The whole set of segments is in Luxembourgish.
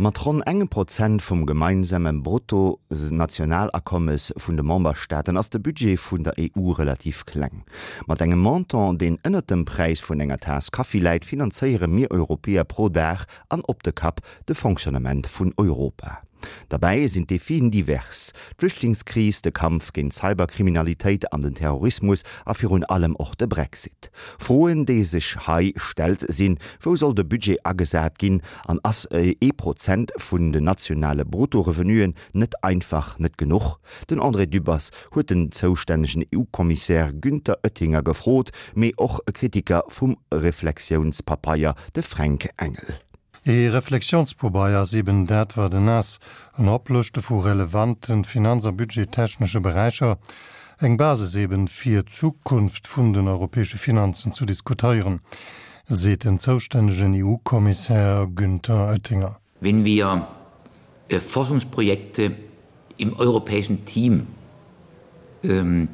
Mat ronn engem Prozent vum gemeinsame Bruttonationalakommes vun de Memberstaaten ass de Budget vun der EU relativ kleng. Mat engem Montant, deen ënnert dem Präis vun enger Taass Kaffi läit, finanzéiere mir Europäer pro Dag an op de Kapp de Fonctionnement vun Europa. Derbäi sinn d'Defien divers, d'Flüchtlingskris, de Kampf géint d'Cyberkriminalitéit an den Terrorismus a virun allem och de Brexit. Froen, déi sech hei stellt, sinn, Wou soll de Budget agesat ginn an ass ee Prozent vun den nationale Bruttorevenuen net einfach net genuch? Den André Dübbers huet den zoustännegen EU-Kommissär Günther Oettinger gefrot, mee och e Kritiker vum Reflexiounspapeier, de Fränk Engel. Ee Reflexionspobeier ass eben dat, wat en ass, en Oplëschte vu relevanten finanz a budgettechnesche Beräicher, eng Basis eben, fir d'Zukunft vun den europäesche Finanzen zu diskuteieren, seet den zoustännegen EU-Kommissär Günther Oettinger. Wenn wir Forschungsprojekte im europäischen Team ähm,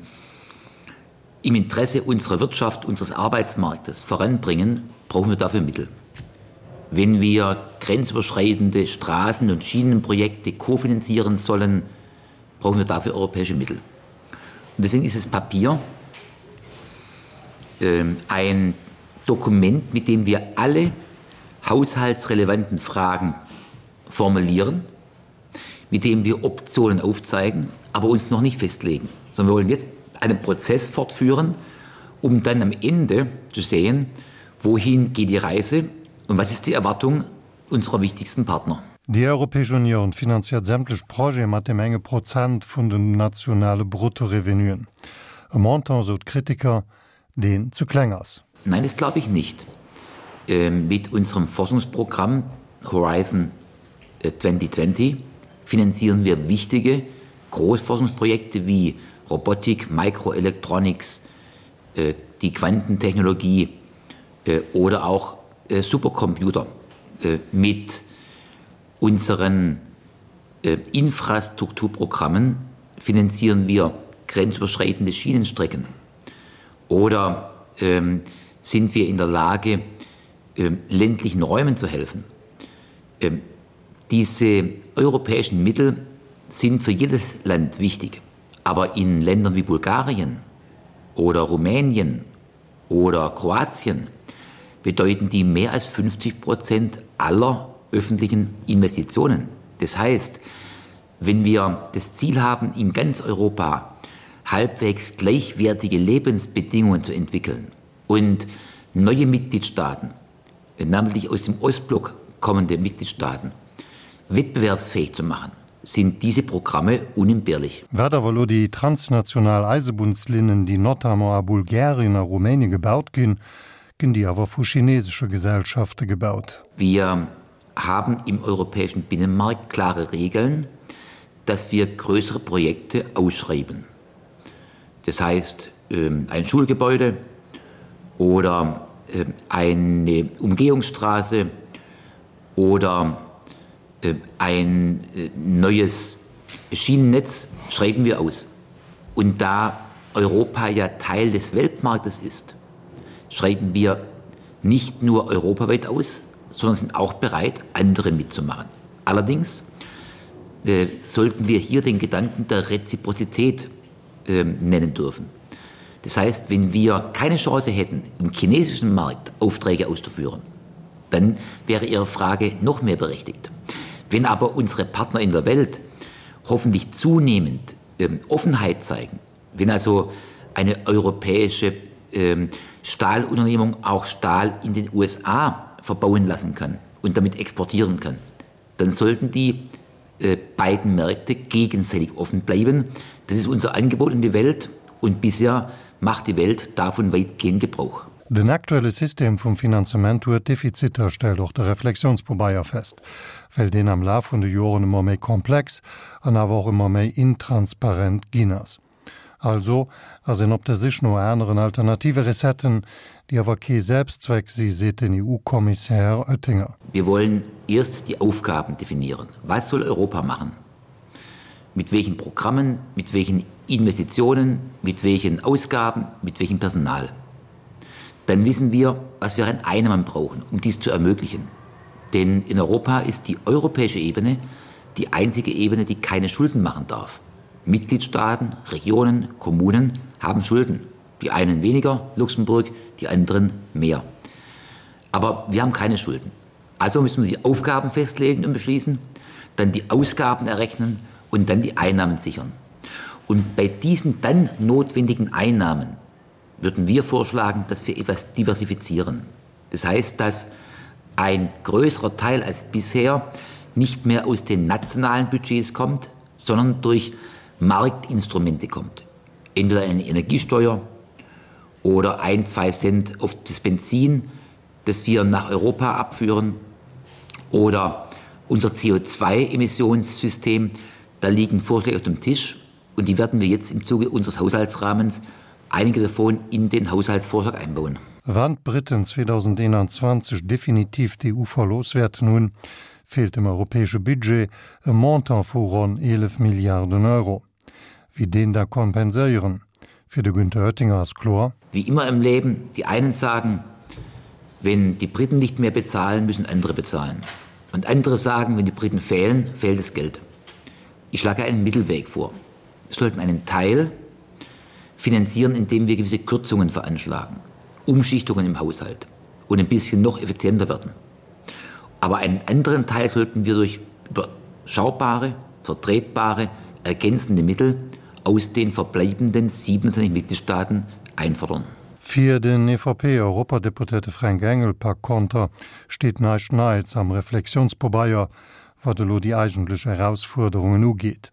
im Interesse unserer Wirtschaft, unseres Arbeitsmarktes voranbringen, brauchen wir dafür Mittel. Wenn wir grenzüberschreitende Straßen- und Schienenprojekte kofinanzieren sollen, brauchen wir dafür europäische Mittel. Und deswegen ist das Papier äh, ein Dokument, mit dem wir alle haushaltsrelevanten Fragen formulieren, mit dem wir Optionen aufzeigen, aber uns noch nicht festlegen, sondern wir wollen jetzt einen Prozess fortführen, um dann am Ende zu sehen, wohin geht die Reise und was ist die Erwartung unserer wichtigsten Partner. Déi Europäesch Unioun finanziert sämtlech Projete mat deem enge Prozent vun den nationale Bruttorevenuen. E Montant, sou d'Kritiker, deen zu kleng ass. Nein, das glaube ich nicht. Ähm, mit unserem Forschungsprogramm Horizon 2020 äh, finanzieren wir wichtige Großforschungsprojekte wie Robotik, Microelectronics, äh, die Quantentechnologie äh, oder auch Supercomputer mit unseren Infrastrukturprogrammen finanzieren wir grenzüberschreitende Schienenstrecken oder ähm, sind wir in der Lage, ähm, ländlichen Räumen zu helfen. Ähm, diese europäischen Mittel sind für jedes Land wichtig, aber in Ländern wie Bulgarien oder Rumänien oder Kroatien bedeuten die mehr als 50 Prozent aller öffentlichen Investitionen. Das heißt, wenn wir das Ziel haben, in ganz Europa halbwegs gleichwertige Lebensbedingungen zu entwickeln und neue Mitgliedstaaten, namentlich aus dem Ostblock kommende Mitgliedstaaten, wettbewerbsfähig zu machen, sind diese Programme unentbehrlich. Wat awer elo déi transnational Eisebunnslinnen, déi notamment a Bulgarien a Rumänien gebaut ginn, ginn déi awer vu chinesesche Gesellschafte gebaut. Wir haben im europäischen Binnenmarkt klare Regeln, dass wir größere Projekte ausschreiben. Das heißt ähm, ein Schulgebäude oder ähm, eine Umgehungsstraße oder äh, ein äh, neues Schienennetz schreiben wir aus. Und da Europa ja Teil des Weltmarktes ist, schreiben wir nicht nur europaweit aus, sondern sind auch bereit, andere mitzumachen. Allerdings äh, sollten wir hier den Gedanken der Reziprozität äh, nennen dürfen. Das heißt, wenn wir keine Chance hätten, im chinesischen Markt Aufträge auszuführen, dann wäre Ihre Frage noch mehr berechtigt. Wenn aber unsere Partner in der Welt hoffentlich zunehmend ähm, Offenheit zeigen, wenn also eine europäische ähm, Stahlunternehmung auch Stahl in den USA verbauen lassen kann und damit exportieren kann, dann sollten die äh, beiden Märkte gegenseitig offen bleiben. Das ist unser Angebot in die Welt und bisher macht die Welt davon weitgehend Gebrauch. Den aktuelle System vum Finanzement huet Defiziter, stellt och de Reflexionspobeier fest, well deen am Laf vun de Joren ëmmer méi komplex an awer och ëmmer méi intransparent ginn ass. Also ass een op der Sich no aneren alternative Recetten, déi awer kee Selbstzweck si, seet den EU-Kommissär Oettinger. Wir wollen erst die Aufgaben definieren. Was soll Europa machen? Mit welchen Programmen, mit welchen Investitionen, mit welchen Ausgaben, mit welchem Personal? Dann wissen wir, was wir an Einnahmen brauchen, um dies zu ermöglichen. Denn in Europa ist die europäische Ebene die einzige Ebene, die keine Schulden machen darf. Mitgliedstaaten, Regionen, Kommunen haben Schulden. Die einen weniger, Luxemburg, die anderen mehr. Aber wir haben keine Schulden. Also müssen wir die Aufgaben festlegen und beschließen, dann die Ausgaben errechnen und dann die Einnahmen sichern. Und bei diesen dann notwendigen Einnahmen würden wir vorschlagen, dass wir etwas diversifizieren. Das heißt, dass ein größerer Teil als bisher nicht mehr aus den nationalen Budgets kommt, sondern durch Marktinstrumente kommt. Entweder eine Energiesteuer oder ein, zwei Cent auf das Benzin, das wir nach Europa abführen oder unser CO2-Emissionssystem, da liegen Vorschläge auf dem Tisch und die werden wir jetzt im Zuge unseres Haushaltsrahmens einige davon in den Haushaltsvorschlag einbauen. Wann d'Briten 2021 definitiv d'EU verlooss wäerten hunn, feelt dem europäesche Budget e Montant vu ronn 11 Milliarden Euro. Wie deen da kompenséieren? Fir de Günther Oettinger ass kloer. Wie immer im Leben, die einen sagen, wenn die Briten nicht mehr bezahlen, müssen andere bezahlen. Und andere sagen, wenn die Briten fehlen, fehlt das Geld. Ich schlage einen Mittelweg vor. Wir sollten einen Teil finanzieren, indem wir gewisse Kürzungen veranschlagen, Umschichtungen im Haushalt und ein bisschen noch effizienter werden. Aber einen anderen Teil sollten wir durch überschaubare, vertretbare, ergänzende Mittel aus den verbleibenden 27 Mitgliedstaaten einfordern. Fir den EVP-Europadeputéierte Fränk Engel par konter steet näischt Neits am Reflexiounspobeier, wat elo déi eigentlech Erausfuerderungen ugeet.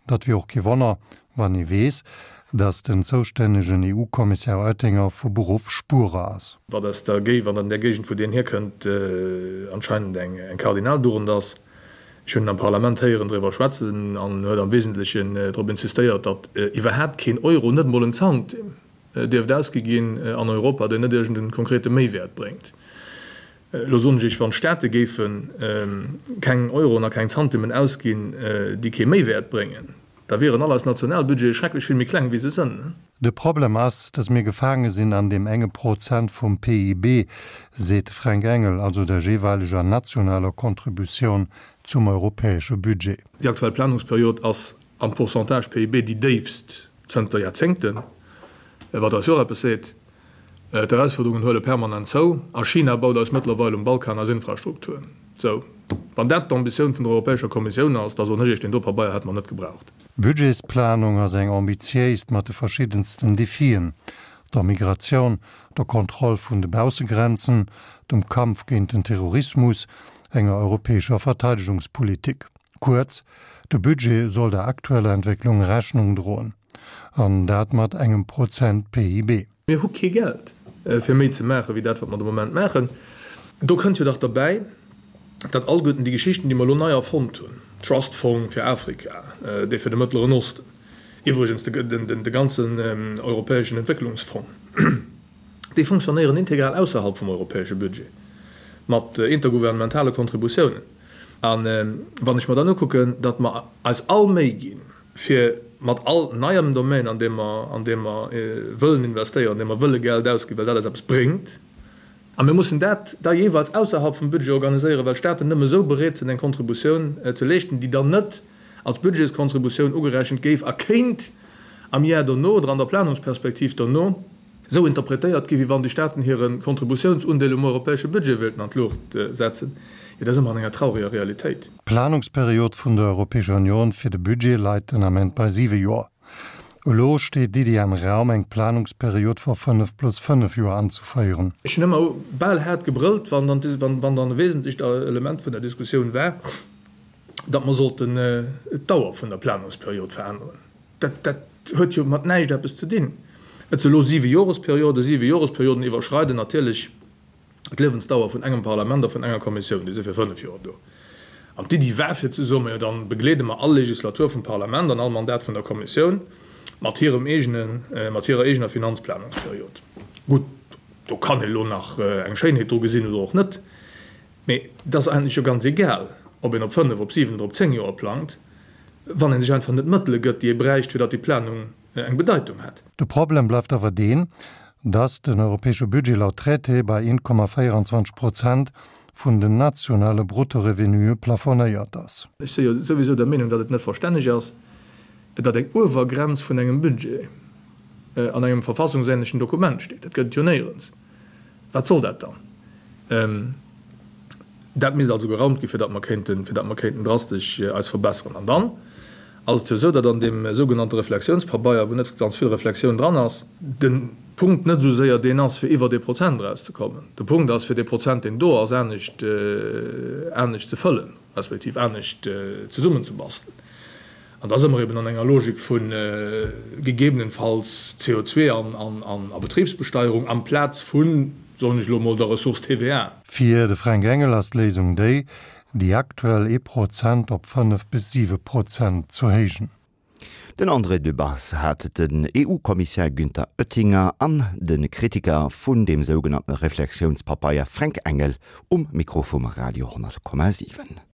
Dat wier och kee Wonner, wann ee weess, datt den zoustännegen EU-Kommissär Oettinger vu Beruff Spuerer ass. Wat aus der Géi wat an där Géigend, wou deen hierkënnt, anscheinend eng Kardinaldugend ass. Ech hunn en am Parlament héieren driwwer schwätzen an en huet am Wesentlechen drop insistéiert, datt iwwerhaapt keen Euro, net emol en Zantim, dierft ausgi ginn an Europa, deen net iergend e konkrete Méiwäert bréngt. Elo soen ech Iech, wann d'Staate géife keng Euroen a keng Zantimmen ausginn, déi kee Méiwäert bréngen, da wieren all eis Nationalbudgete schrecklech vill méi kleng, wéi se sënn. De Problem ass, datt mir gefaange sinn an deem enge Prozent vum PIB, seet de Fränk Engel, also der jeeweileger nationaler Contributioun zum europäesche Budget. Déi aktuell Planungsperiod ass am Pourcentage PIB déi déifst zënter Jaerzéngten, wat eis jo och eppes seet. D'Erausfuerderungen huele permanent zou a China baut eis mëttlerweil um Balkan eis Infrastruktur. Sou, wann dat d'Ambitioun vun der Europäescher Kommissioun ass, da soen ech Iech, deen do Pabeier hätte mer net gebraucht. D'Budgetsplanung ass eng ambitiéist mat de verschiddensten Defien, der Migratioun, der Kontroll vun de Baussegrenzen, dem Kampf géint den Terrorismus, enger europäescher Verteidegungspolitik. Kuerz, de Budget soll der aktueller Entwécklung Rechnung droen. An dat mat engem Prozent PIB. Mir hu kee Geld, fir méi ze maachen, wéi dat, wat mer de Moment maachen. Do kënnt jo dach derbäi, datt alleguerten déi Geschichten, déi mer elo nei erfonnt hunn, Trust Fong fir Afrika, dee fir de Mëttleren Osten, iwwregens de ganzen europäeschen Entwécklungsfong, déi funktionéieren integral ausserhalb vum europäesche Budget mat intergouvernementale Kontributiounen. A wann ech mer dann ukucken, datt mer eis all Méi ginn, fir mat all neiem Domaine, an deem mer, an deem mer wëllen investéieren, an deem mer wëlle Geld ausginn, well dat eis eppes bréngt, a mir mussen dat da jeeweils ausserhalb vum Budget organiséieren, well d'Staaten nëmme esou bereet sinn, eng Kontributioun ze leeschten, déi dann net als Budgetskontributioun ugerechent géif a kéint am Jar dono oder an der Planungsperspektiv dono esou interpretéiert ginn, wéi wann déi Staaten hire Kontributiounsundeel um europäesche Budget wéilten an d'Luucht setzen, jo da si mer an enger traureger Realitéit. D'Planungsperiod vun der Europäescher Union fir de Budget leit den Ament bei siwe Joer. Elo steet d'Iddi am Raum, eng Planungsperiod vu fënnef plus fënnef Joer anzeféieren. Ech hunn ëmmer bal haart gebrëllt, wann dann e wesentlecht Element vun der Diskussioun war, datt mer sollten d'Dauer vun der Planungsperiod veränneren. Dat huet jo mat näischt eppes ze dinn. Et si elo siwe Joresperioden. Siwe Joresperioden iwwerschreiden natierlech d'Liewensdauer vun engem Parlament a vun enger Kommissioun. Déi si fir fënnef Joer do. An d'Iddi war fir ze soen, majo da begleede mer all Legislatur vum Parlament an all Mandat vun der Kommissioun mat hirem eegenen, mat hirer eegener Finanzplanungsperiod. Gutt, do kann ee lo nach eng Schéinheet dru gesinn oder och net. Mee et ass eigentlech jo ganz egal, ob een op fënnef, op siwen oder op zéng Joer plangt, wann ee sech einfach net d'Mëttele gëtt, déi ee bräicht, fir datt déi Planung eng Bedeitung hätt. De Problem bleift awer deen, datt den europäesche Budget laut Traité bei 1,24 Prozent. vun den nationale Bruttorevenuë plafonéiert ass. Ech si jo souwisou der Meenung, datt et net verstänneg ass, datt eng Uewergrenz vun engem Budget an engem verfassungsähnlechen Dokument steet. Dat gëtt et jo néierens. Wat soll dat dann? Dat misst also geraumt ginn, fir datt mer kéinten, fir datt mer kéinten drastesch eis verbesseren. An dann ass et jo esou, datt an deem sougenannte Reflexiounspabeier, wou net ganz vill Reflexioun dran ass, de Punkt net esou séier deen ass, fir iwwer dee Prozent erauszekommen. De Punkt ass, fir dee Prozent, deen do ass, anescht, anescht ze fëllen, respektiv anescht zesummenzebastelen. An da si mer eben an enger Logik vu gegebenenfalls CO2 an a Betribsbesteierung amplaz vun, soen ech elo emol, der Ressource TVA. Fir de Fränk Engel ass d'Léisung déi, déi aktuell ee Prozent op 5 bis 7 Prozent zu héijen. Den André Dübbers hat den EU-Kommissär Günther Oettinger an de Kritiker vun deem sougenannte Reflexiounspapeier Fränk Engel um Mikro vum Radio 10,7.